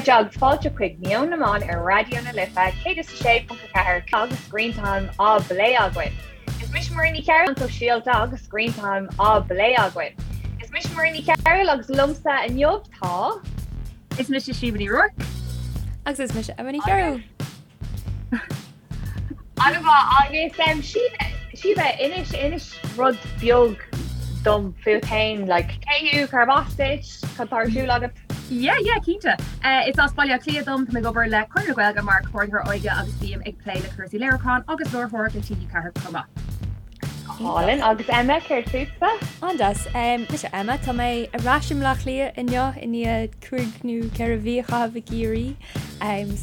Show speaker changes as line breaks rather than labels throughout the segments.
chairde agus fáilte chuig Meon na mBan ar Raidió na Life 106.4 agus Screen Time á bplé againn. Is mise Muireann Ní Chearúil sóisialta agus Screen Time á bplé againn. Is mise Muireann Ní Chearúil agus liomsa inniu tá.
Is mise Síomha Ní Ruairc.
Agus is mise Emma Ní Chearúil.
An-mhaith agus Síomha, inis inis rud beag dom fút féin, like, cé thú, cárb as duit, cad tá ar siúl agat?
Yeah, yeah, cinnte. Is as Baile Átha Cliath dom, tá mé ag obair le Conradh na Gaeilge mar Comhordaitheoir Óige agus bím ag plé le cúrsaí léiriúcháin agus láithreoireacht le TG4 chomh maith.
Go hálainn. Agus Emma, céard fútsa?
An-deas. Mise Emma, tá mé ar ais i mBleá Cliath inniu i ndiaidh 5 nó 4 mhí a chaitheamh i gCiarraí.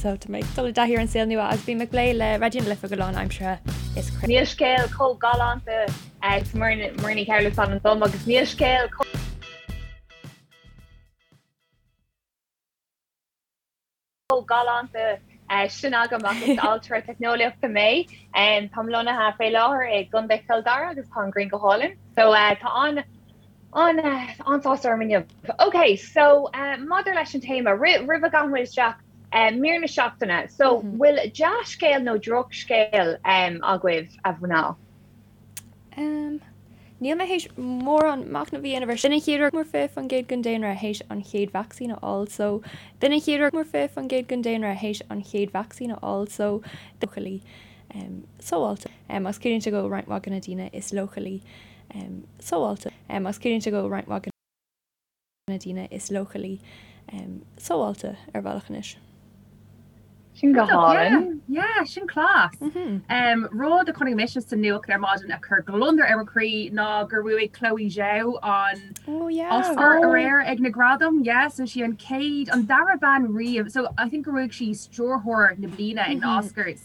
So tá mé ag dul i dtaithí ar an saol nua agus bím ag plé le Raidió na Life go lánaimseartha.
Is Níl scéal chomh galánta is Muireann Ní Chearúil is ainm dom agus níl scéal chomh galánta sin agam ach is ailtire teicneolaíochta mé. Táim lonnaithe fé láthair i gContae Chill Dara agus tá an ghrian go hálainn. So tá an an an-sásamh orm inniu. Ok, so maidir leis an téama, roimh a ghabhann muid isteach, mír na seachtaine. So bhfuil dea-scéal nó drochscéal agaibh a mhná?
Níl mé théis mórán machnaimh a dhéanamh air sin. B'in an chéad uair mór 20% den daonra théis an chéad vacsaín a fháil so b'in an chéad uair mór 20% den daonra théis an chéad vacsaín a fháil so leochailí sábháilte agus ciallaíonn sé go bhfuil roinnt mhaith de na daoine is leochailí sábháilte agus ciallaíonn sé go bhfuil roinnt mhaith de na daoine is leochailí sábháilte ar bhealach anois.
Sin go hálainn.
Yeah, sin class. Rud a chonaic mise sa nuacht ar maidin a chuir gliondar ar mo chroí ná gur bhuaigh Chloe Zhao an Oscar aréir ag na gradaim. Yeah, so sí an chéad, an dara bean riamh, so I think gur bhuaigh sí stiúrthóir na bliana ag na Oscars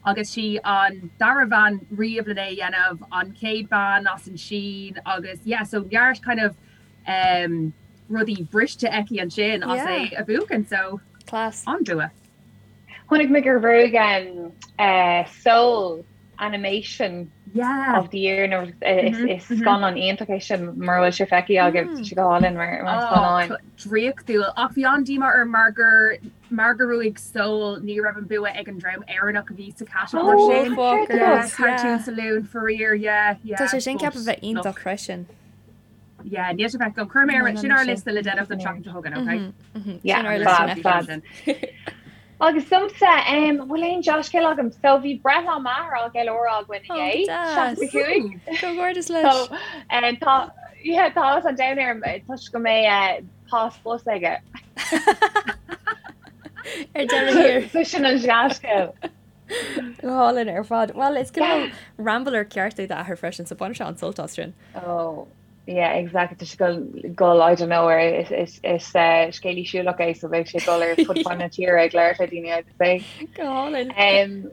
agus sí an dara bhean riamh lena é a dhéanamh, an chéad bean as an Sín agus yeah, so neart kind of rudaí briste aici ansin as é a bhuachan so
Class.
an-bhua.
Chonaic mé gur bhuaigh Soul Animation
Yeah.
of the Year nó is scannán iontach é sin mura bhfuil sé feicthe agaibh tá sé go hálainn mar scannán.
Draíochtúil ach bhí an-díomá orm mar gur mar gur bhuaigh Soul ní raibh an bua ag an dream Éireannach a bhí sa catagóir sin. Cartoon Saloon faraor yeah yeah.
Tá sé sin ceaptha a bheith iontach freisin.
Yeah, níl sé feicthe agam. Cuir mé ar sin ar liosta le déanamh don tseachtain seo chugainn,
okay? Yeah, sin ar liosta fab, fab. Agus domsa, um, bhfuil aon dea-scéal agam? So bhí breithlá m'athar á gceiliúradh againn
inné.
65.
Comhghairdeas leis.
So, um, tá, yeah, tá áthas an domhain orm toisc go mbeidh uh, pas bus aige.
Ar deireadh thiar.
So sin an dea-scéal.
Go hálainn ar fad. Well, is cineál rambler ceart é d'athair freisin, so baineann sé an-sult as sin.
Oh, yeah, exactly. Tá sé ag gabháil, I don't know, ar is, is, is uh, scéalaí siúlach é, so beidh sé ag dul ar fud fad na tíre ag labhairt le daoine, I'd say.
Go hálainn.
Um,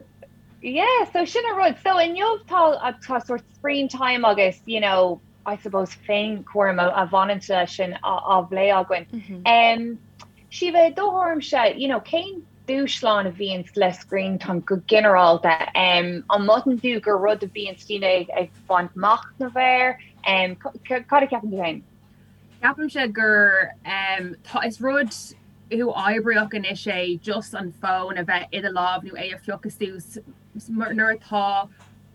yeah, so sin an rud. So inniu tá, tá sort screen time agus, you know, I suppose féinchúram a, a bhaineann leis sin á, á phlé againn. Mm -hmm. Um, Síomha, i do thuairimse, you know, cén dúshlán a bhíonns le screen time go ginearálta? An mothaíonn tú gur rud a bhíonns daoine ag baint machnamh air? Cad a cheapann tú féin?
Ceapaimse gur tá, is rud uathoibríoch anois é just an fón a bheith i do lámh nó é a phiocadh suas nuair atá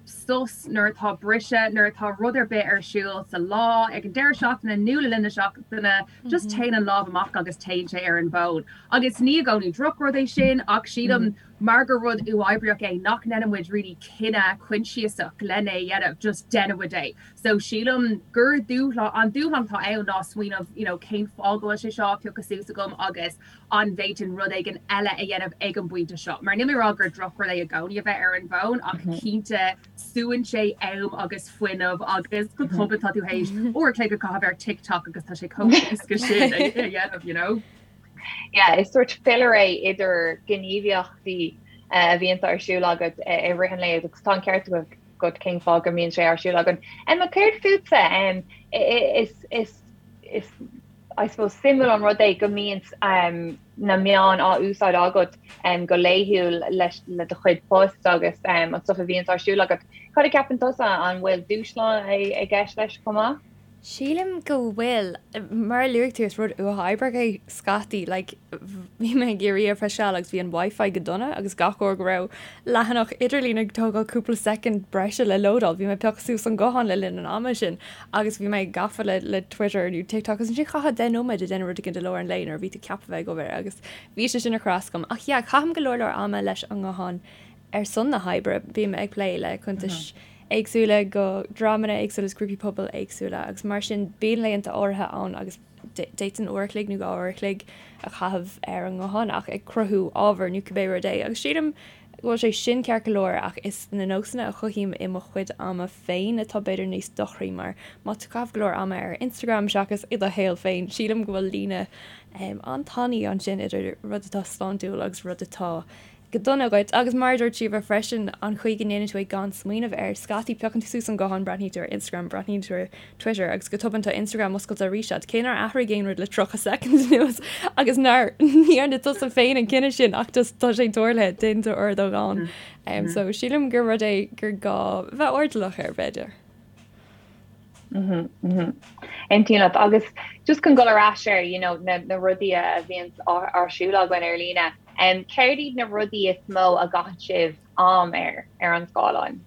sos, nuair atá briseadh, nuair atá rud ar bith ar siúl sa lá, ag an deireadh seachtaine nó le linn na seachtaine, just téann an lámh amach agus téann sé ar an bhfón. Agus ní i gcónaí drochrud é sin ach sílim mar gur rud uathoibríoch é nach ndéanann muid really cinneadh coinsiasach len é a dhéanamh, just déanann muid é. So sílim gur dúshlán, an dúshlán atá ann ná smaoineamh you know cén fáth go bhfuil sé seo á phiocadh suas agam agus an bhféadfainn rud éigin eile a dhéanamh ag an bpointe seo. Mar níl mé ag rá gur drochrud é i gcónaí a bheith ar an bhfón ach cinnte súann sé am agus fuinneamh agus go tobann tá tú théis uair a chloig a chaitheamh ar TikTok agus tá sé chomh héasca sin a dhéanamh, you know?
Yeah, is sort filler é idir gníomhaíochtaí a bhíonn ar siúl agat i rith an lae agus tá an ceart agat cén fáth go mbíonn sé ar siúl againn. Emma, céard fútsa? Is, is, is I suppose suimiúil an rud é go mbíonn na meáin á úsáid agat go laethúil leis le do chuid post agus an stuff a bhíonns ar siúl agat. Cad a cheapann tusa, an bhfuil dúshlán i gceist leis chomh maith?
Sílim go bhfuil. Mar a luaigh tú, is rud uathoibríoch é scaití. Like, bhí mé ag iarraidh ar feadh seal agus bhí an Wi-Fi go dona agus gach uair go raibh leathanach idirlín ag tógáil cúpla soicind breise le lódáil, bhí mé ag piocadh suas an guthán le linn an ama sin agus bhí mé gafa le le Twitter nó TikTok agus ansin chaithfeá 10 nóiméad ag déanamh rud éigin i lár an lae nuair a bhí tú ceaptha bheith ag obair agus bhí sé sin ag cur as dom. Ach yeah, caithim go leor leor ama leis an nguthán ar son na hoibre. Bím ag plé le cuntais éagsúla go dreamanna éagsúla is grúpaí pobail éagsúla agus mar sin bíonn laethanta áirithe ann agus d'fhéadfainn uair a chloig nó 2 uair a chloig a chaitheamh ar an nguthán ach ag cruthú ábhar nó cibé rud é agus sílim go bhfuil sé sin ceart go leor ach is na nósanna a chothaím i mo chuid ama féin atá b'fhéidir níos dochraí mar má tá tú ag caitheamh go leor ama ar Instagram seachas i do shaol féin sílim go bhfuil líne an-tanaí ansin idir rud atá sláintiúil agus rud atá go dona dhuit. Agus mar a dúirt Síomha freisin, an chaoi go ndéanann tú é gan smaoineamh air. Scaití, piocann tú suas an guthán, breathnaíonn tú ar Instagram, breathnaíonn tú ar Twitter agus go tobann tá Instagram oscailte arís agat, cé nár athraigh aon rud le 30 soicind anuas agus nár ní dhearna tusa féin an cinneadh sin ach just tá sé tarlaithe, déanann tú ordógán. So sílim gur rud é gur gá bheith airdeallach air, b'fhéidir.
Aontaím leat. Agus just chun dul ar ais ar you know, na, na rudaí a bhíonn ar siúl againn ar líne, um, céard iad na rudaí is mó a gcaitheann sibh am air ar an scáileán?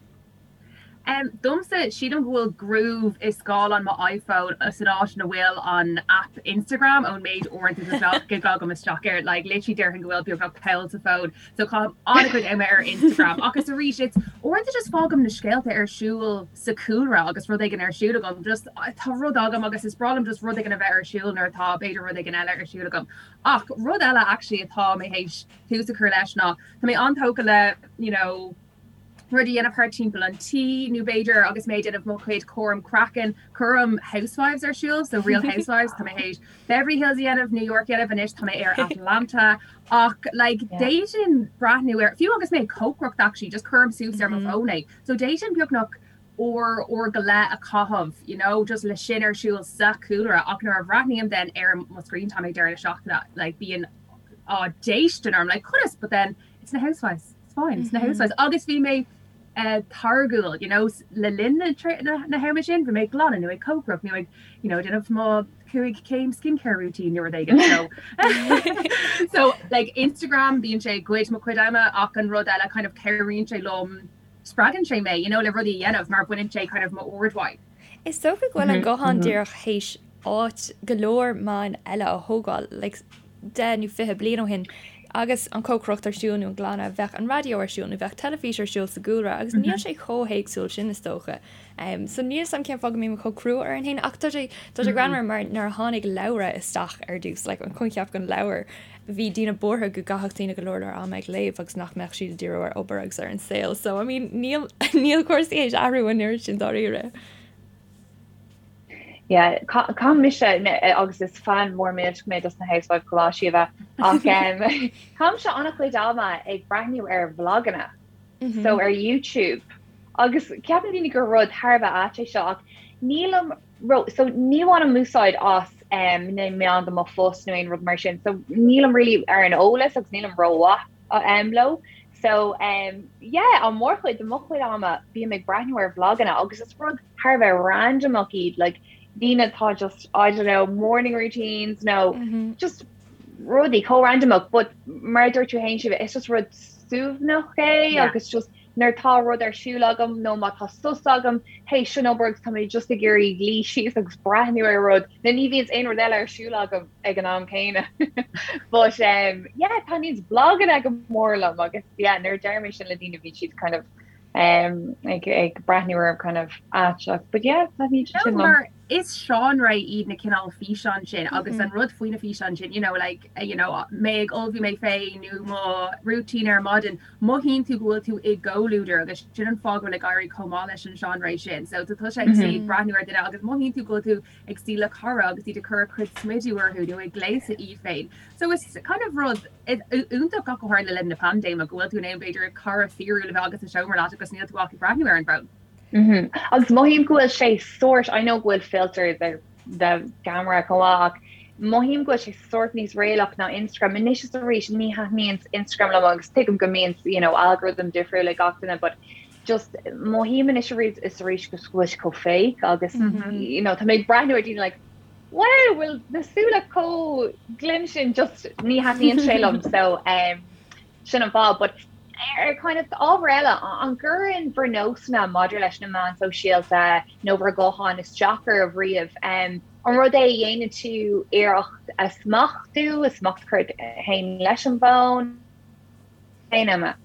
Um, domsa, sílim go bhfuil groove i scáileán mo iPhone san áit ina bhfuil an app Instagram ón méid uaireanta go gclogaim isteach air, like, literally déarfainn go bhfuil beagnach poll sa phone. So caithim an-chuid ama ar Instagram agus arís it's uaireanta just fágaim na scéalta ar siúl sa chúlra agus rud éigin ar siúl agam, just tá rud agam agus is breá liom just rud éigin a bheith ar siúl nuair atá b'fhéidir rud éigin eile ar siúl agam. Ach rud eile actually atá mé théis tús a chur leis ná tá mé an-tógtha le you know, rud a dhéanamh thart timpeall an tí nó b'fhéidir agus mé ag déanamh mo chuid cúram craicinn, cuirim Housewives ar siúl, so Real Housewives, tá mé théis Beverly Hills a dhéanamh, New York a dhéanamh anois tá mé ar Atlanta ach like d'fhéadfainn breathnú ar, fiú agus mé ag cócaireacht actually, just cuirim suas ar mo fón é. So d'fhéadfainn beagnach uair, uair go leith a chaitheamh, you know, just le sin ar siúl sa chúlra ach nuair a bhreathnaím then ar mo screen time ag deireadh na seachtaine, like bíonn á déistin orm, like conas, but then it's na Housewives, it's fine, it's na Housewives. Agus bhí mé eh, táirgiúil, you know, le linn na, na, na hama sin, bhí mé ag glanadh nó ag cócaireacht nó ag, you know, déanamh mo 5 céim skincare routine nó rud éigin. So, so like Instagram bíonn sé ag goid mo chuid ama ach an rud eile kind of cabhraíonn sé liom spreagann sé mé, you know, le rudaí a dhéanamh mar baineann sé kind of m'aird uaidh.
Is dócha go bhfuil an guthán díreach théis áit go leor meáin eile a thógáil, like 10 nó 20 bliain ó shin agus an cócaireacht ar siúl nó an glanadh, bheadh an raidió ar siúl nó bheadh teilifís ar siúl sa gcúlra agus níl sé chomh héagsúil sin is dócha. Um, so níl 'fhios a'm cén fáth go mbím chomh crua orainn féin ach tá sé tá sé greannmhar mar nuair a tháinig leabhra isteach ar dtús, like an coincheap den leabhar, bhí daoine buartha go gcaithfeadh daoine go leor leor ama ag léamh agus nach mbeadh siad ag díriú ar obair agus ar an saol. So I mean níl níl cúrsaí théis athrú an oiread sin dáiríre.
Yeah, caithim mise agus is fan mór millteach mé dos na Housewives chomh maith Síomha ach um, caithimse an-chuid ama ag breathnú ar vloganna mm -hmm. so ar YouTube agus ceapann daoine gur rud thar a bheith ait é seo ach nílim ró so ní bhainim úsáid as um, na meáin do mo phost nó aon rud mar sin so nílim really ar an eolas agus nílim rómhaith um, leo so um, yeah an mórchuid de mo chuid ama bím ag breathnú ar vloganna agus is rud thar a bheith randomach iad like daoine atá just I don't know morning routines nó mm -hmm. just rudaí chomh randomach but mar a dúirt tú féin Síomha is just rud suaimhneach é yeah. agus just nuair tá rud ar siúl agam nó má tá sos agam théis an obair agus tá mé just ag iarraidh luí síos agus breathnú ar rud nó ní bhíonn aon rud eile ar siúl agam ag an am céanna. But um, yeah, taitníonn vloganna go mór liom agus yeah, nuair a deir mé sin le daoine bíonn siad kind of um, ag, ag breathnú orm kind of aisteach. But yeah, taitníonn siad sin liom.
Is seánra iad na cineál físeán sin agus an rud faoi na físeáin sin, you know, like, you know, mé ag ullmhú mé féin nó mo routine ar maidin, mothaíonn tú go bhfuil tú i gcomhluadar agus sin an fáth go bhfuil ag éirí chomh maith leis an seánra sin. So tá tusa ag suí ag breathnú ar duine agus mothaíonn tú go bhfuil tú ag suí le cara agus iad ag cur a cuid smidiú orthu nó ag gléasadh iad féin. So is kind of rud iontach ach go háirithe le linn na paindéime go bhfuil tú in ann b'fhéidir cara fíorúil a bheith agat sa seomra leat agus níl tú ach ag breathnú ar an bhfón.
Mm-hmm. Agus mothaím go bhfuil sé sórt, I know go bhfuil filters ar the camera chomh maith ach mothaím go bhfuil sé sórt níos réalaíoch ná Instagram. Anois is arís ní thaitníonn Instagram liom agus tuigim go mbíonn you know, algorithm difriúil ag gach duine, but just mothaím anois arís is arís go bhfuil sé chomh fake agus you know tá mé ag breathnú ar daoine like wow bhfuil na súile chomh glinn sin just ní thaitníonn sé liom so um, sin an fáth but ar kind of ábhar eile an gcuireann bhur nósanna maidir leis na meáin sóisialta nó bhur gutháin isteach oraibh riamh um, an rud é a dhéanann tú iarracht a smachtú a smacht a chur ort féin leis an bhfón féin Emma?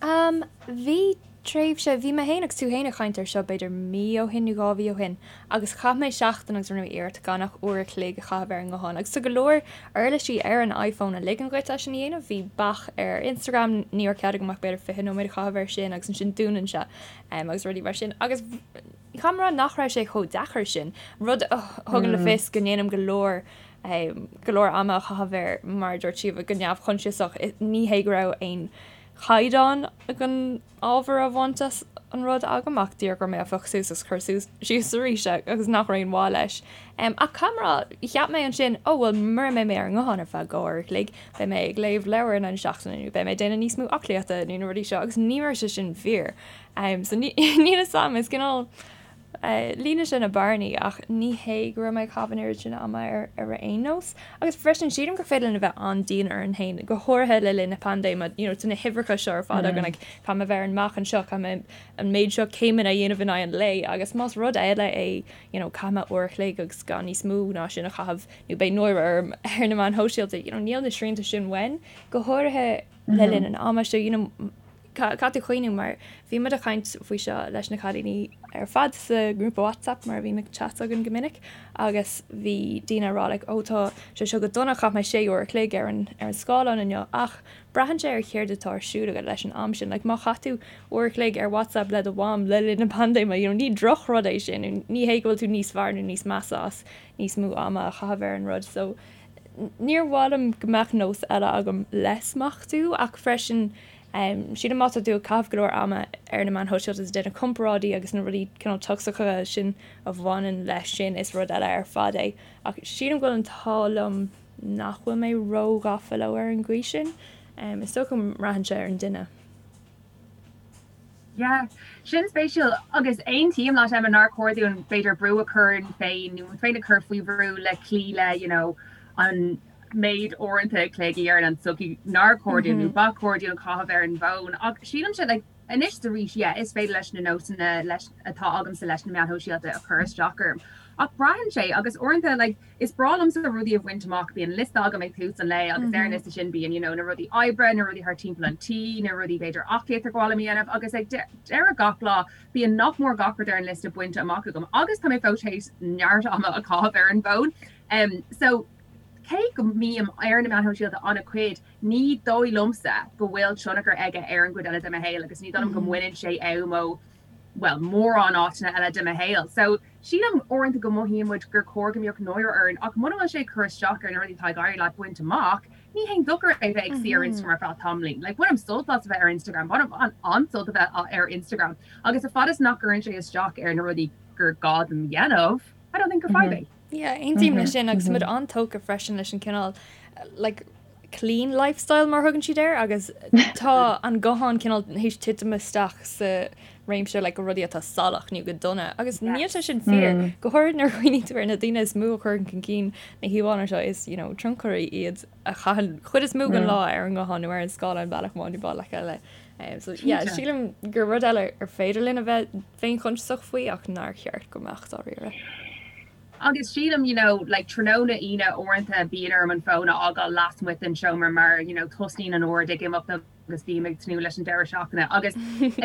Am, Bhí tréimhse, bhí mé féin agus tú féin ag caint air seo b'fhéidir mí ó shin nó 2 mhí ó shin agus chaith mé seachtain agus rinne mé iarracht gan ach uair a chloig a chaitheamh ar an nguthán agus tá go leor uirlisí ar an iPhone a ligeann dhuit é sin a dhéanamh, bhí bac ar Instagram, ní raibh cead agam ach b'fhéidir 20 nóiméad a chaitheamh air sin agus ansin dúnann sé agus rudaí mar sin agus caithfidh mé a rá nach raibh sé chomh deacair sin, rud a thugann le fios go ndéanaim go leor go leor ama a chaitheamh air, mar a dúirt Síomha, go neamhchoinsiasach. Ní hé go raibh aon chaighdeán den ábhar a bhaint as an rud agam ach díreach go raibh mé á phiocadh suas agus cur suas síos arís agus nach raibh aon mhaith leis. Ach caithfidh mé a rá, cheap mé ansin, ó bhuel mura mbeidh mé ar an nguthán ar feadh 2 uair a chloig, beidh mé ag léamh leabhar in aghaidh na seachtaine nó beidh mé ag déanamh níos mó aclaíochta nó na rudaí seo agus ní raibh sé sin fíor. So níl a fhios agam, is cineál Líonann sé na bearnaí ach ní hé go raibh mé ag caitheamh an oiread sin ama air ar aon nós. Agus freisin sílim gur féidir linn a bheith an-dian orainn féin, go háirithe le linn na paindéime, you know tá na huimhreacha seo ar fad againn like caithfidh mé a bheith ar an mbealach anseo, caithfidh mé an méid seo céimeanna a dhéanamh in aghaidh an lae agus más rud eile é you know caithfidh mé uair a chloig agus gan níos mó ná sin a chaitheamh nó beidh náire orm ar na meáin shóisialta, you know níl na srianta sin uainn, go háirithe le linn an ama seo, you know Caithfidh tú cuimhniú mar bhí muid ag caint faoi seo leis na cailíní ar fad sa ngrúpa WhatsApp mar a bhíonn chats againn go minic agus bhí daoine ag rá like oh tá sé seo go dona chaith mé sé uair a chloig ar an ar an scáileán inniu ach braitheann sé ar chéard atá ar siúl agat leis an am sin like má chaith tú uair a chloig ar WhatsApp le do mham le linn na paindéime you know ní drochrud é sin ní hé go bhfuil tú níos fearr nó níos measa as níos mó ama a chaitheamh ar an rud so níor mhaith liom go mbeadh nós eile agam le smachtú ach freisin Sílim má tá tú ag caitheamh go leor ama ar na meáin shóisialta is ag déanamh comparáidí agus na rudaí cineál tocsacha sin a bhaineann leis sin, is rud eile ar fad é. Ach sílim go bhfuil an t-ádh liom nach bhfuil mé róghafa leo ar an gcaoi sin. Is dócha go mbraitheann sé ar an duine.
Yeah, sin spéisiúil agus aontaím leat Emma nár chóir dúinn b'fhéidir brú a chur orainn féin nó muid féin a chur faoi bhrú le cloí le you know an méid uaireanta a chloig a deireann an tsochaí nár chóir dúinn nó ba chóir dúinn caitheamh ar an bhfón ach sílimse like anois is arís yeah is féidir leis na nósanna leis atá agamsa leis na meáin shóisialta a chur isteach orm ach braitheann sé agus uaireanta like is breá liomsa rudaí a bhaint amach bíonn liosta agam ag tús an lae agus ar an liosta sin bíonn you know na rudaí oibre na rudaí thar timpeall an tí na rudaí b'fhéidir aclaíocht ar mhaith liom a dhéanamh agus ag deireadh gach lá bíonn nach mór gach rud ar an liosta bainte amach agam agus tá mé fós théis neart ama a chaitheamh ar an bhfón um so Cé go mbím ar na meáin shóisialta an-chuid, ní dóigh liomsa go bhfuil tionchar aige ar an gcuid eile de mo shaol agus ní dóigh liom go mbaineann sé am ó, bhuel, mórán áiteanna eile de mo shaol. So, sílim uaireanta go mothaíonn muid gur chóir go mbeadh náire orainn ach muna bhfuil sé ag cur isteach ar na rudaí atá ag éirí leat baint amach, ní haon dochar é bheith ag suí ar Instagram ar feadh tamaillín. Like, bainim sult as a bheith ar Instagram, bainim an-sult a bheith ar Instagram agus a fad is nach gcuireann sé isteach ar na rudaí gur gá dom dhéanamh, I don't think gur fadhb é.
Yeah, aontaím leis sin agus muid an-tógtha freisin leis an cineál like clean lifestyle mar a thugann siad air agus tá an guthán cineál théis titim isteach sa réimse like rudaí atá salach nó go dona agus níl sé sin fíor. Go háirid nuair a chuimhníonn tú ar na daoine is mó a chuireann chun cinn na híomhánna seo is you know tionchairí iad a chaitheann chuid is mó den lá ar an nguthán nó ar an scáileán bealach amháin nó bealach eile. So yeah, sílim gur rud eile ar féidir linn a bheith féinchoinsiasach faoi ach nár cheart go mbeadh dáiríre.
Agus sílim, you know, like tráthnóna Aoine uaireanta bíonn orm an fón a fhágáil lasmuigh den seomra mar, you know, tosnaíonn an ord ag imeacht agus bím ag tnúth leis an deireadh seachtaine agus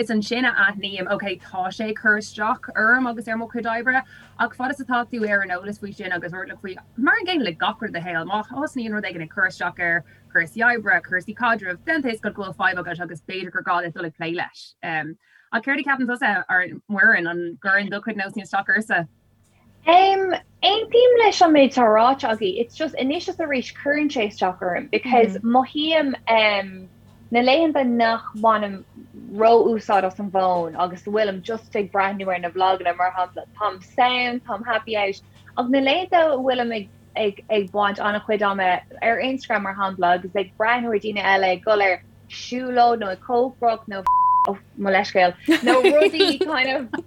is ansin a aithním, ok, tá sé ag cur isteach orm agus ar mo chuid oibre ach fad is atá tú ar an eolas faoi sin agus airdeallach faoi, mar an gcéanna le gach rud i do shaol, má thosnaíonn rud éigin ag cur isteach ar chúrsaí oibre, cúrsaí caidrimh, then tá a fhios agat go bhfuil fadhb agat agus b'fhéidir gur gá duit dul ag plé leis. Ach céard a cheapann tusa, Muireann, an gcuireann do chuid nósanna isteach ortsa?
Um, aontaím leis an méid atá ráite agaibh. It's just anois is arís cuireann sé isteach orm because mothaím um, na laethanta nach mbainim ró-úsáid as an bhfón agus go bhfuilim just ag breathnú ar na vloganna mar shampla, táim sound, táim happy out, ach na laethanta a bhfuilim ag ag ag baint an-chuid ama ar Instagram mar shampla agus ag breathnú ar daoine eile ag dul ar siúlóid nó ag cócaireacht nó. Oh, mo leithscéal. Nó rudaí kind of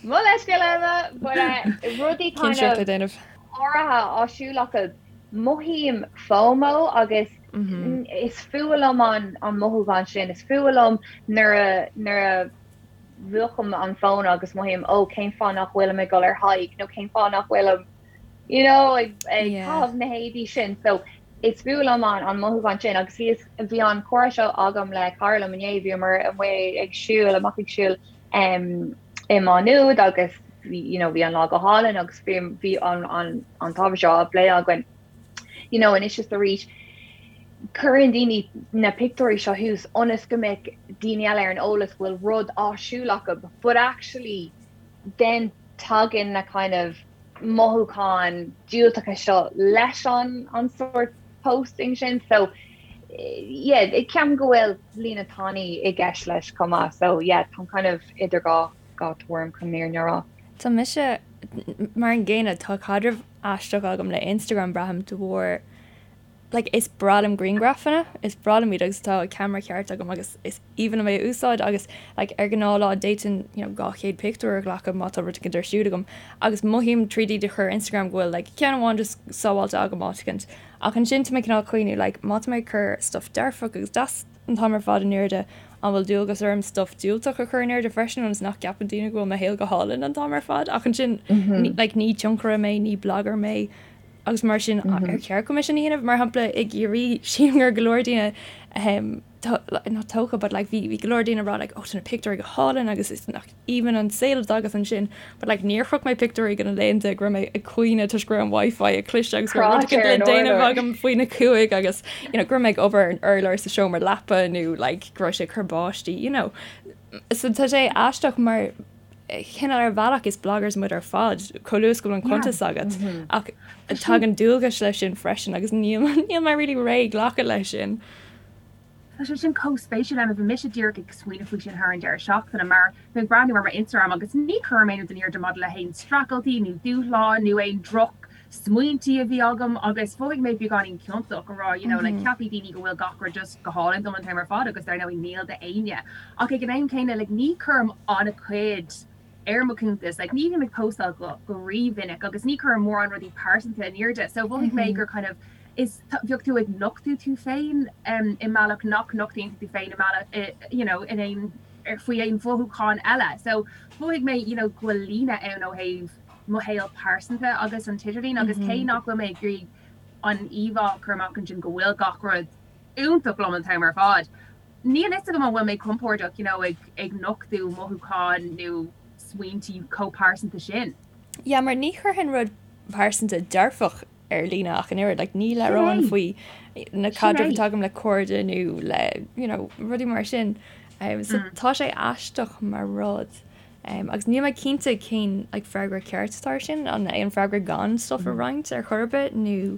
Mo leithscéal Emma, but uh, rudaí kind
Cinsireacht
of
le déanamh.
áirithe á siúl acu. Mothaím FOMO agus is fuath liom an an mothúchán sin. Is fuath liom nuair a nuair a mhúchaim an fón agus mothaím ó cén fáth nach bhfuilim ag dul ar hike nó cén fáth nach bhfuilim you know ag ag caitheamh na héadaí sin. So is fuath liom an an mothúchán sin agus bhí bhí an comhrá seo agam le cara liom inné, bhíomar amuigh ag siúl, amach ag siúl um, i Má Nuad agus bhí you know, bhí an lá go hálainn agus bhí bhí an an an t-ábhar seo á phlé againn. You know, anois is arís cuireann daoine na pictiúirí seo thuas ionas go mbeidh daoine eile ar an eolas go bhfuil rud á siúl acu, but actually then tagann na kind of mothúcháin diúltacha seo leis an an sórt posting sin so yeah ceapaim go bhfuil líne tanaí i gceist leis chomh maith so yeah táim kind of idir dhá dhá tuairim chun an fhírinne a rá.
Tá mise mar an gcéanna, tá caidreamh aisteach agam le Instagram braithim de bharr like is breá liom grianghrafanna, is breá liom iad agus tá ceamara ceart agam agus is aoibhinn liom é a úsáid agus like ar ghnáthlá d'fhéadfainn you know 200 pictiúr a ghlacadh má tá rud éicint ar siúl agam agus mothaím tríd iad a chur ar Instagram go bhfuil like ceann amháin just sábháilte agam áit éicint ach ansin tá mé cineál ag cuimhniú like má tá mé ag cur stuff dearfach agus deas an t-am ar fad in airde an bhfuil dualgas orm stuff diúltach a chur in airde freisin ionas nach gceapann daoine go bhfuil mo shaol go hálainn an t-am ar fad ach ansin like ní tionchaire mé ní blogger mé agus mar sin ar cheart dom é sin a dhéanamh? Mar shampla i gCiarraí sílim go raibh go leor daoine not tógtha but like bhí bhí go leor daoine ag rá like oh tá na pictiúirí go hálainn agus is nach aoibhinn an saol atá agat ansin but like níor chroch mé pictiúirí de na laethanta go raibh mé ag caoineadh toisc go raibh an wifi ag cliseadh agus go raibh rud éicint le déanamh agam faoina cúig agus you know go raibh mé ag obair ar an urlár sa seomra leapa nó like go raibh sé ag cur báistí you know. So tá sé aisteach mar cineál ar bhealach is bloggers muid ar fad, chomh luath is go bhfuil an cuntas agat, ach tagann dualgais leis sin freisin agus níl níl mé really réidh glacadh leis sin.
Tá sé sin chomh spéisiúil Emma, bhí mise díreach ag smaoineamh faoi sin thar an deireadh seachtaine mar bhí mé ag breathnú ar mo Instagram agus ní chuirim aon rud in airde maidir le haon streachailtí nó dúshláin nó aon droch smaointí a bhí agam agus mhothaigh mé beagáinín ciontach a rá you know like ceapfaidh daoine go bhfuil gach rud just go hálainn dom an t-am ar fad agus dar ndóigh níl d'éinne ach ag an am céanna like ní chuirim an-chuid ar mo chuntas like ní bhím ag postáil go go rímhinic agus ní chuirim mórán rudaí pearsanta in airde so mhothaigh mé gur kind of is bheadh tú ag nochtadh tú féin um, i mbealach nach nochtaíonn tú féin i mbealach you know in aon ar faoi aon mhothúchán eile so mhothaigh mé you know go bhfuil líne ann ó thaobh mo shaol pearsanta agus an t-idirlíon agus cé nach bhfuil mé ag iarraidh an íomhá a chur amach ansin go bhfuil gach rud iontach liom an t-am ar fad, níl fhios agam an bhfuil mé compordach you know ag ag nochtadh mothúcháin nó smaointí chomh pearsanta sin.
Yeah, mar ní chuirfinn rud pearsanta dearfach ar líne ach an oiread, like ní labhróinn faoi na caidrimh atá agam le cairde nó le you know rudaí mar sin. Um, so tá sé aisteach mar rud. Um, agus níl mé cinnte cén like, freagra ceart atá ar sin, an é an freagra gan stuff a roinnt ar chor ar bith nó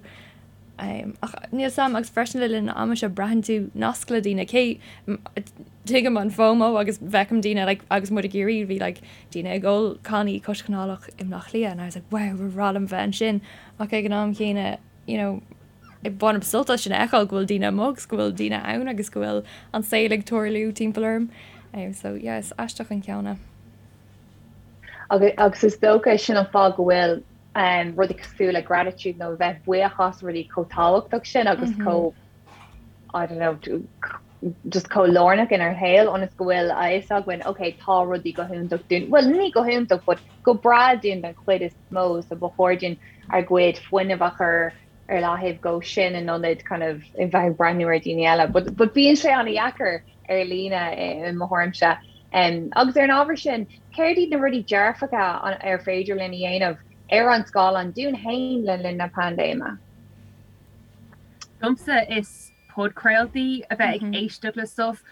um, ach níl 'fhios a'm agus freisin le linn an ama seo braitheann tú nasc le daoine cé tuigim an FOMO agus feicim daoine like, agus muid i gCiarraí bhí like, daoine ag ól cannaí cois canálach i mBleá Cliath and I was like wow ba bhreá liom bheith ansin ach ag an am chéanna you know, bainim sult as sin a fheiceáil go bhfuil daoine amuigh agus go bhfuil daoine ann agus go bhfuil an saol ag tarlú timpeall orm. Um, so yeah, is aisteach an ceann é.
Agus, agus is dócha sin an fáth go bhfuil um, rudaí cosúil le gratitude nó bheith buíoch as rudaí chomh tábhachtach sin agus mm -hmm. chomh I don't know, just chomh lárnach inár shaol ionas go bhfuil a fhios againn, ok, tá rudaí go hiontach dúinn, bhuel ní go hiontach but go breá dúinn den chuid is mó so ba chóir dúinn ár gcuid fuinnimh a chur ar leathaobh dhó sin in ionad kind of a bheith ag breathnú ar dhaoine eile. But, but bíonn sé an-dheacair ar líne i mo thuairimse. Um, agus ar an ábhar sin, céard iad na rudaí dearfacha ar féidir linn a dhéanamh ar an scáileán dúinn féin le linn na paindéime?
Domsa is podchraoltaí a bheith ag éisteacht le stuff.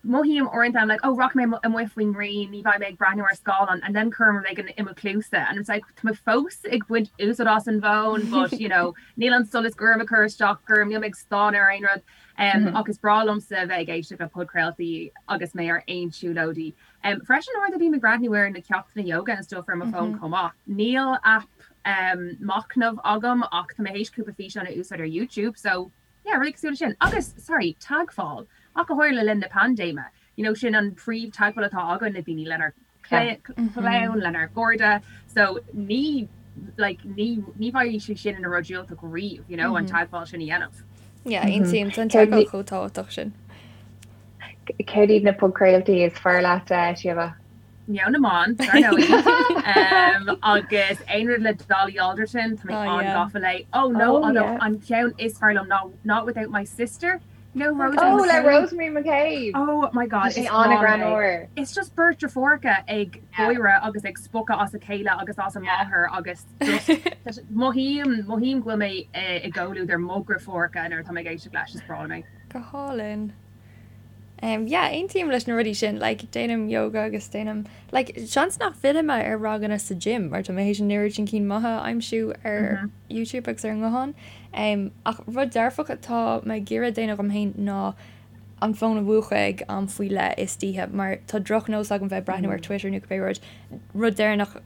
Mothaím uaireanta I'm like oh rachaidh mé amuigh faoin ngrian ní bheidh mé ag breathnú ar scáileán and then cuirim rud éigin i mo chluasa and it's like tá mé fós ag baint úsáid as an bhfón but you know níl an solas gorm ag cur isteach orm níl mé ag stánadh ar aon rud um, ach is breá liomsa a bheith ag éisteacht le podchraoltaí agus mé ar aon siúlóidí. Um, freisin uaireanta bím ag breathnú ar na ceachtanna yoga and stuff ar mo fón chomh maith. Níl aip um, machnamh agam ach tá mé théis cúpla físeán a úsáid ar YouTube so Yeah, rudaí cosúil leis sin. Agus, sorry, teagmháil, ach go háirithe le linn na paindéime. You know, sin an príomh-teagmháil atá againn le daoine, lenár gclann, lenár gcairde. So ní, like, ní, ní bheidh sé sin ina rud diúltach riamh, you know, an teagmháil sin a dhéanamh.
Yeah, aontaím, tá an teagmháil chomh tábhachtach sin.
Céard iad na podchraoltaí is fearr leat, Síomha?
Meon na mBan, dar ndóigh. Agus aon rud le Dolly Alderton, tá mé an-gafa léi. Oh no, although an ceann is fearr liom ná Not Without My Sister.
No, Rosemary Oh, le Rosemary McCabe!
Oh my God, is an-ghreannmhar. It's just beirt deirfiúracha ag gáire agus ag spochadh as a chéile agus as a máthair agus just mothaím, mothaím go bhfuil mé i gcomhluadar mo dheirfiúracha nuair atá mé ag éisteacht leis, is breá liom é.
Go hálainn. Um, yeah, aontaím leis na rudaí sin, like, déanaim yoga agus déanaim, like, seans nach bhfillfidh mé ar ranganna sa gym mar tá mé théis an oiread sin cinn maithe a aimsiú ar mm -hmm. YouTube agus ar an nguthán. Um, ach rud dearfach atá mé ag iarraidh déanamh dhom féin ná an fón a mhúchadh ag am faoi leith istoíche mar tá drochnós agam bheith ag breathnú ar Twitter nó cibé rud, rud deireanach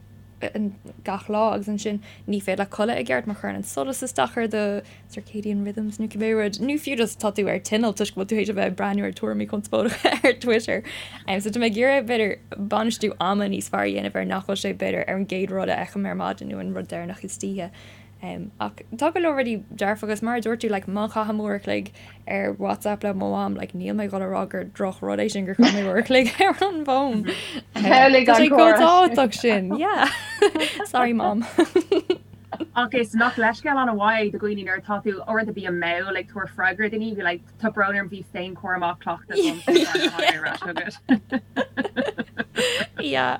gach lá agus ansin ní féidir leat codladh i gceart mar chuireann an solas isteach ar do circadian rhythms nó cibé rud, nó fiú just tá tú ar tinneall toisc go bhfuil tú théis a bheith ag breathnú ar tuairimí conspóideacha ar Twitter. Um, so tá mé ag iarraidh b'fhéidir bainistiú ama níos fearr a dhéanamh ar nach bhfuil sé b'fhéidir ar an gcéad rud a fheicim ar maidin nó an rud deireanach istoíche. Um, ach tá go leor rudaí dearfacha agus mar a dúirt tú like, má chaithim uair a chloig ar WhatsApp le mo mham like, níl mé ag dul a rá gur droch rud é sin gur chaith mé uair a chloig ar an bhfón. Um, tá sé chomh tábhachtach sin. Yeah. Sorry mom.
Ach is nach leithscéal an-mhaith do dhaoine nuair atá tú uaireanta bím mall ag tabhairt freagra daoine bhí like tá brón orm bhí féinchúram á chleachtadh agam so tháinig mé ar ais chugat.
Yeah.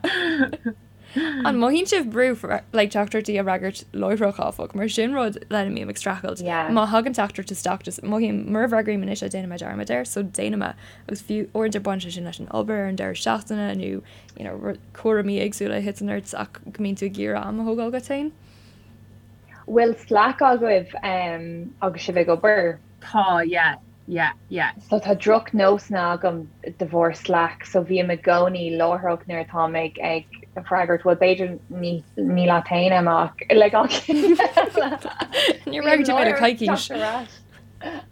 An mothaíonn sibh brú like teachtaireachtaí a fhreagairt láithreach áfach, mar sin rud lena mbím ag streachailt. Yeah. Má thagann teachtaireacht isteach just mothaím mura bhfreagraím anois é déanfaidh mé dearmad air, so déanaim é. Agus fiú uaireanta baineann sé sin leis an obair ar an deireadh seachtaine nó you know, cúraimí éagsúla a thiteann ort ach go mbíonn tú ag iarraidh am a thógáil dhuit féin.
Bhfuil Slack agaibh um, agus sibh ag obair?
Tá, yeah. Yeah, yeah.
So tá drochnósanna agam de bharr Slack, so bím i gcónaí láithreach nuair atáim ag ag freagairt, bhuel b'fhéidir ní ní leat féin Emma ach le gach
éinne eile. Níor fhreagair tú mé le coicís.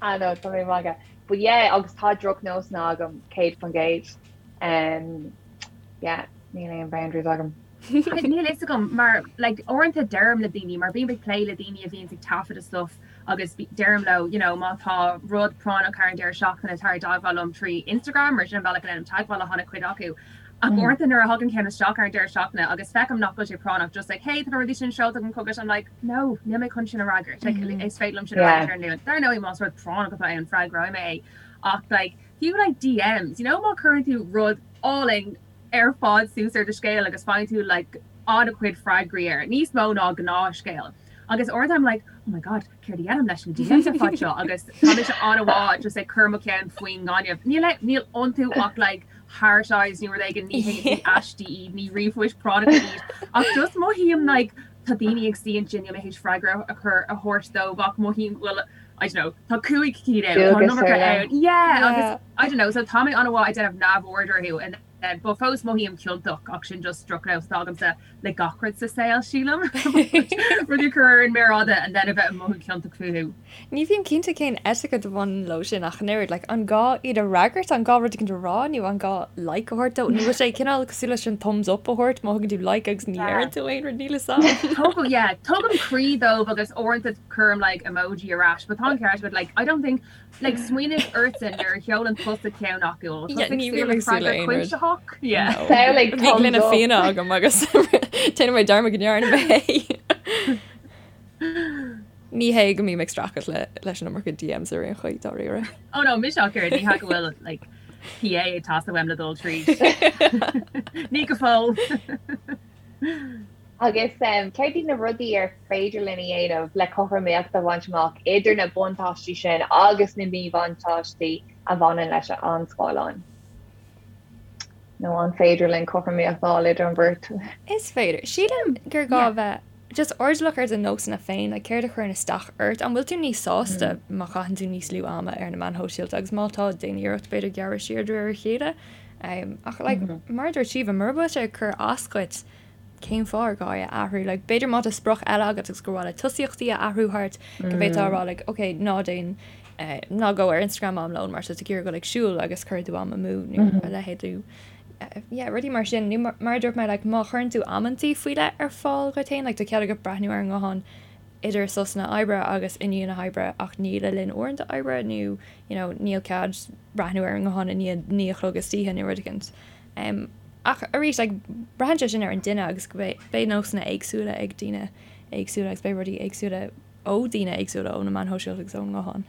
Ah no, tá mé ag magadh. But yeah, agus tá drochnósanna agam 100%. Um, yeah, níl aon boundaries agam.
Níl fhios agam mar like uaireanta deirim le daoine mar bím ag plé le daoine a bhíonns ag taifeadadh stuff agus deirim leo you know má tá rud práinneach thar an deireadh seachtaine tar i dteagmháil liom trí Instagram mar sin an bealach a ndéanaim teagmháil le han-chuid acu. Ach uaireanta nuair a thagann ceann isteach ar an deireadh seachtaine agus feicim nach bhfuil sé práinneach just like hey tá na rudaí sin seolta agam chugat I'm like no níl mé chun sin a fhreagairt like is féidir liom sin a fhreagairt ar an Luan. Dar ndóigh más rud práinneach atá ann freagróidh mé é ach like fiú like DMs you know má chuireann tú rud álainn ar fad suas ar do scéal agus faigheann tú like an-chuid freagraí air, níos mó ná gnáthscéal. Agus uaireanta I'm like oh my god céard a dhéanaim leis na DMs ar fad seo agus tá mise an-mhaith just ag cur mo cheann faoin ngaineamh. Níl níl iontu ach like heart eyes nó rud éigin ní hé ní aistí iad, ní ríomhphoist práinneacha iad ach just mothaím like tá daoine ag suí ansin níl mé théis freagra a chur a thabhairt dóibh ach mothaím go bhfuil I don't know tá 5 cinn ann, tá an iomarca ann. Yeah agus I don't know, so tá mé an-mhaith ag déanamh neamhaird orthu and then but fós mothaím ciontach ach sin just drochnós atá agamsa le gach rud sa saol sílim. Rudaí a chur ar an méar fhada and then a bheith ag mothú ciontach fúthu.
Ní bhím cinnte cén etiquette a bhaineann leo sin ach an oiread, like an gá iad a fhreagairt, an gá rud éicint a rá nó an gá like a thabhairt dó nó bhfuil sé cineál cosúil leis an thumbs up a thabhairt má thugann tú like agus ní deireann tú aon rud, níl fhios
a'm. Tugaim, yeah, tugaim croí dóibh agus uaireanta cuirim like emoji ar ais but tá an ceart agat like I don't think Like smaoinigh ortsa nuair a sheolann tusa ceann acu ó
Yeah, ní bhím ag súil le aon rud. cuimsitheach? Yeah. No. Samhlaigh Bhí thumbs gloine up. fíona agam agus déanfaidh mé dearmad go ndearna mé é. Ní hé go mbím ag streachailt le leis an iomarca DMs ar aon chaoi dáiríre.
Oh no, mise ach oiread, ní hea go bhfuil like PA ag teastáil uaim le dul tríd. Ní go fóill.
Agus céard iad na rudaí ar féidir linn a dhéanamh le cothromaíocht a bhaint amach idir na buntáistí sin agus na míbhuntáistí a bhaineann leis an scáileán? Nó an féidir linn cothromaíocht a fháil idir an bheirt?
Is féidir. Sílim gur gá a bheith just airdeallach ar do nósanna féin, like céard a chuireann isteach ort? An bhfuil tú níos sásta má chaitheann tú níos lú ama ar na meáin shóisialta agus má tá, déan iarracht b'fhéidir gearradh siar de réir a chéile. Ach like mar a dúirt Síomha, mura bhfuil sé ag cur as dhuit, cén fáth ar gá é a athrú? Like, b'fhéidir má tá sprioc eile agat agus gur mhaith leat tosaíochtaí a athrú thart, go bhféadfá a rá like, ok, ná déan. Ná gabh ar Instagram am lóin mar tá tú ag iarraidh dul ag siúl agus cuirfidh tú am amú nó a leithéid nó yeah rudaí mar sin nó mar a dúirt mé like má chuireann tú amantaí faoi leith ar fáil dhuit féin like tá cead agat breathnú ar an nguthán idir sosanna oibre agus i ndiaidh na hoibre ach ní le linn uaireanta oibre nó you know níl cead breathnú ar an nguthán i ndiaidh 9 a chlog istoíche nó rud éicint. Um, ach arís like braitheann sé sin ar an duine agus go beidh beidh nósanna éagsúla ag daoine éagsúla agus beidh rudaí éagsúla ó daoine éagsúla ó na meáin shóisialta agus ón nguthán.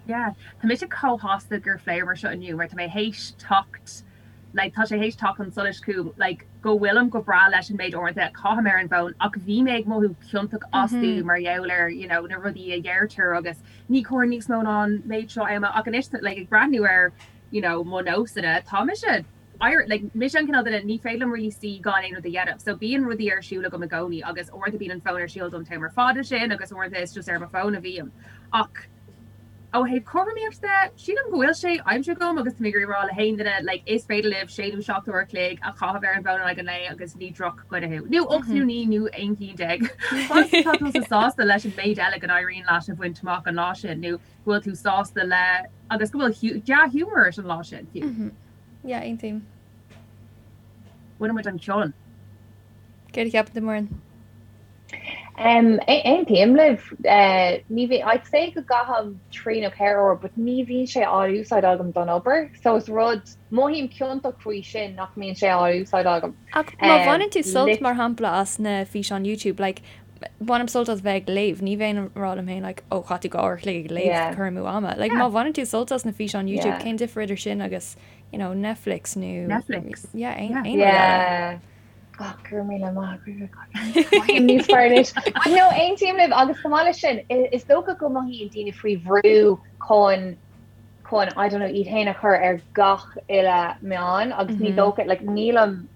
Yeah, tá mise chomh sásta gur phléamar seo inniu mar tá mé théis teacht like tá sé théis teacht chun solais chugam like go bhfuilim go breá leis an méid uaireanta a chaithim ar an bhfón ach bhí mé ag mothú ciontach astu mar gheall ar you know na rudaí a dheirtear agus ní cóir níos mó ná an méid seo ama ach anois like ag breathnú ar you know mo nósanna tá mise Like, mise an cineál duine, ní féidir liom really suí gan aon rud a dhéanamh. So bíonn rudaí ar siúl agam i gcónaí agus uaireanta bíonn an fón ar siúl don t-am ar fad ansin agus uaireanta is just ar mo fón a bhím. Ach ó thaobh cothromaíocht de, sílim go bhfuil sé aimsithe agam agus tá mé ag iarraidh rá le haon duine, like, is féidir libh sé nó 7 uair a chloig a chaitheamh ar an bhfón in aghaidh an lae agus ní drochdhuine thú. Nó 8 nó 9 nó 11 cinn. Fad is atá tusa sásta leis an méid eile go n-éiríonn leat a bhaint amach an lá sin nó go bhfuil tú sásta le agus go bhfuil dea-ghiúmar ort an lá sin fiú.
Yeah, aontaím.
Bhain muid an cion.
Céard a cheapann tú, Muireann?
Um, aontaím libh. Uh, ní bhí, I'd say go gcaithim 3 nó 4 uair, but ní bhíonn sé á úsáid agam don obair, so is rud, mothaím ciontach faoi sin nach mbíonn sé á úsáid agam.
Ach má bhaineann tú sult, mar shampla, as na físeáin YouTube, like, bainim sult as bheith ag léamh, ní bheinn ag rá liom féin like ó chaith tú 2 uair a chloig ag léamh, cur amú ama. Like má bhaineann tú sult as na físeáin YouTube, cén difear idir sin agus you know Netflix nó
Netflix.
Yeah, aon aon rud eile.
Oh, go raibh míle maith agat. Mothaím níos fearr anois. No, aontaím libh agus chomh maith leis sin, is dócha go mothaíonn daoine faoi bhrú chun chun I don't know iad féin a chur ar gach uile meán agus ní dócha like nílim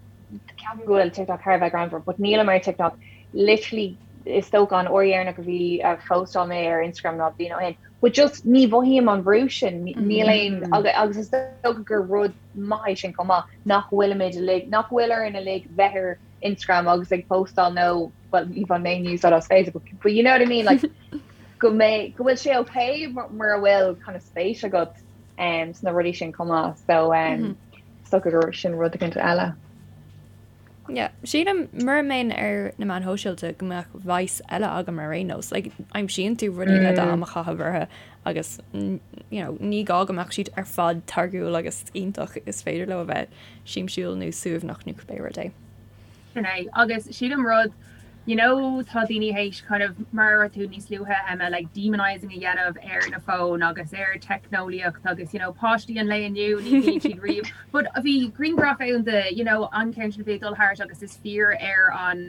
ceapaim go bhfuil TikTok thar a bheith greannmhar but nílim ar TikTok literally is dócha an uair dheireanach a bhí a phóstáil mé ar Instagram ná bliain ó shin but just ní mhothaím an brú sin níl aon agus is dócha gur rud maith é sin chomh maith nach bhfuilimid uilig nach bhfuil orainn uilig bheith ar Instagram agus ag postáil nó well ní bhain mé úsáid as Facebook but you know what I mean like go mbeidh, go bhfuil sé ok mura bhfuil kind of spéis agat um, sna rudaí sin chomh maith. So um, is dócha gur sin rud éicint eile.
Yeah, sílim mura mbeinn ar na meáin shóisialta go mbeadh vice eile agam ar aon nós. Like, aimsíonn tú rudaí le d'am a chaitheamh orthu agus you know, ní gá go mbeadh siad ar fad táirgiúil agus iontach is féidir leo a bheith siamsúil nó suaimhneach nó cibé rud é.
Sin é. Agus sílim rud, you know tá daoine théis kind of, mar a dúirt tú níos luaithe Emma, like demonising a dhéanamh ar na fóin agus ar teicneolaíocht agus you know páistí an lae inniu ní bhíonn siad riamh but bhí grianghraf ann de you know an ceann sin a bhí ag dul thart agus is fear ar an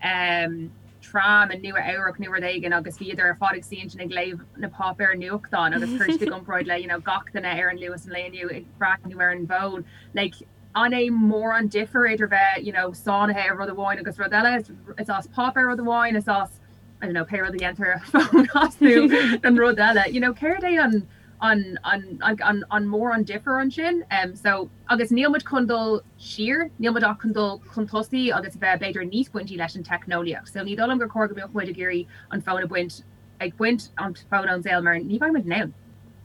um, tram i Nua Eabhrac nó rud éigin agus bhíodar ar fad ag suí ansin ag léamh na páipéir nuachtáin agus chuir siad i gcomparáid le you know gach duine ar an Luas an lae inniu ag breathnú ar an bhfón like An é mórán difear idir bheith, you know, sáinnithe ar rud amháin agus rud eile? Is as páipéar rud amháin, is as, I don't know, pé rud a dhéantar fón astu an rud eile. You know, céard é an, an, an, an, an mórán difear ansin? Um, so, agus níl muid chun dul siar, níl muid ach chun dul chun tosaigh agus a bheith b'fhéidir níos baintí leis an teicneolaíocht. So ní dóigh liom gur chóir go mbeadh muid ag iarraidh an fón a bhaint ag baint an fón ón saol mar ní bheidh muid in ann.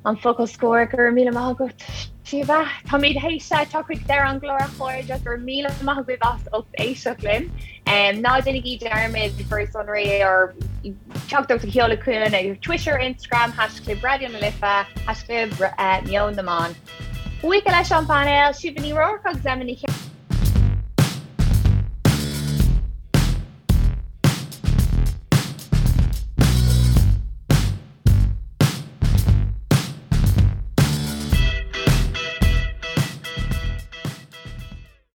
An focal scoir, go raibh míle maith agat, Síomha. Táimid théis teacht chuig deireadh an chláir a chairde, go raibh míle maith agaibh as ucht éisteacht linn. Ná déanaigí dearmad bhur sonraí or teachtaireacht a sheoladh chugainn ar Twitter, Instagram, haischlib Raidió na Life, haischlib Meon na Meán. Buíochas leis an bpainéal, Síomha Ní Ruairc agus Emma Ní.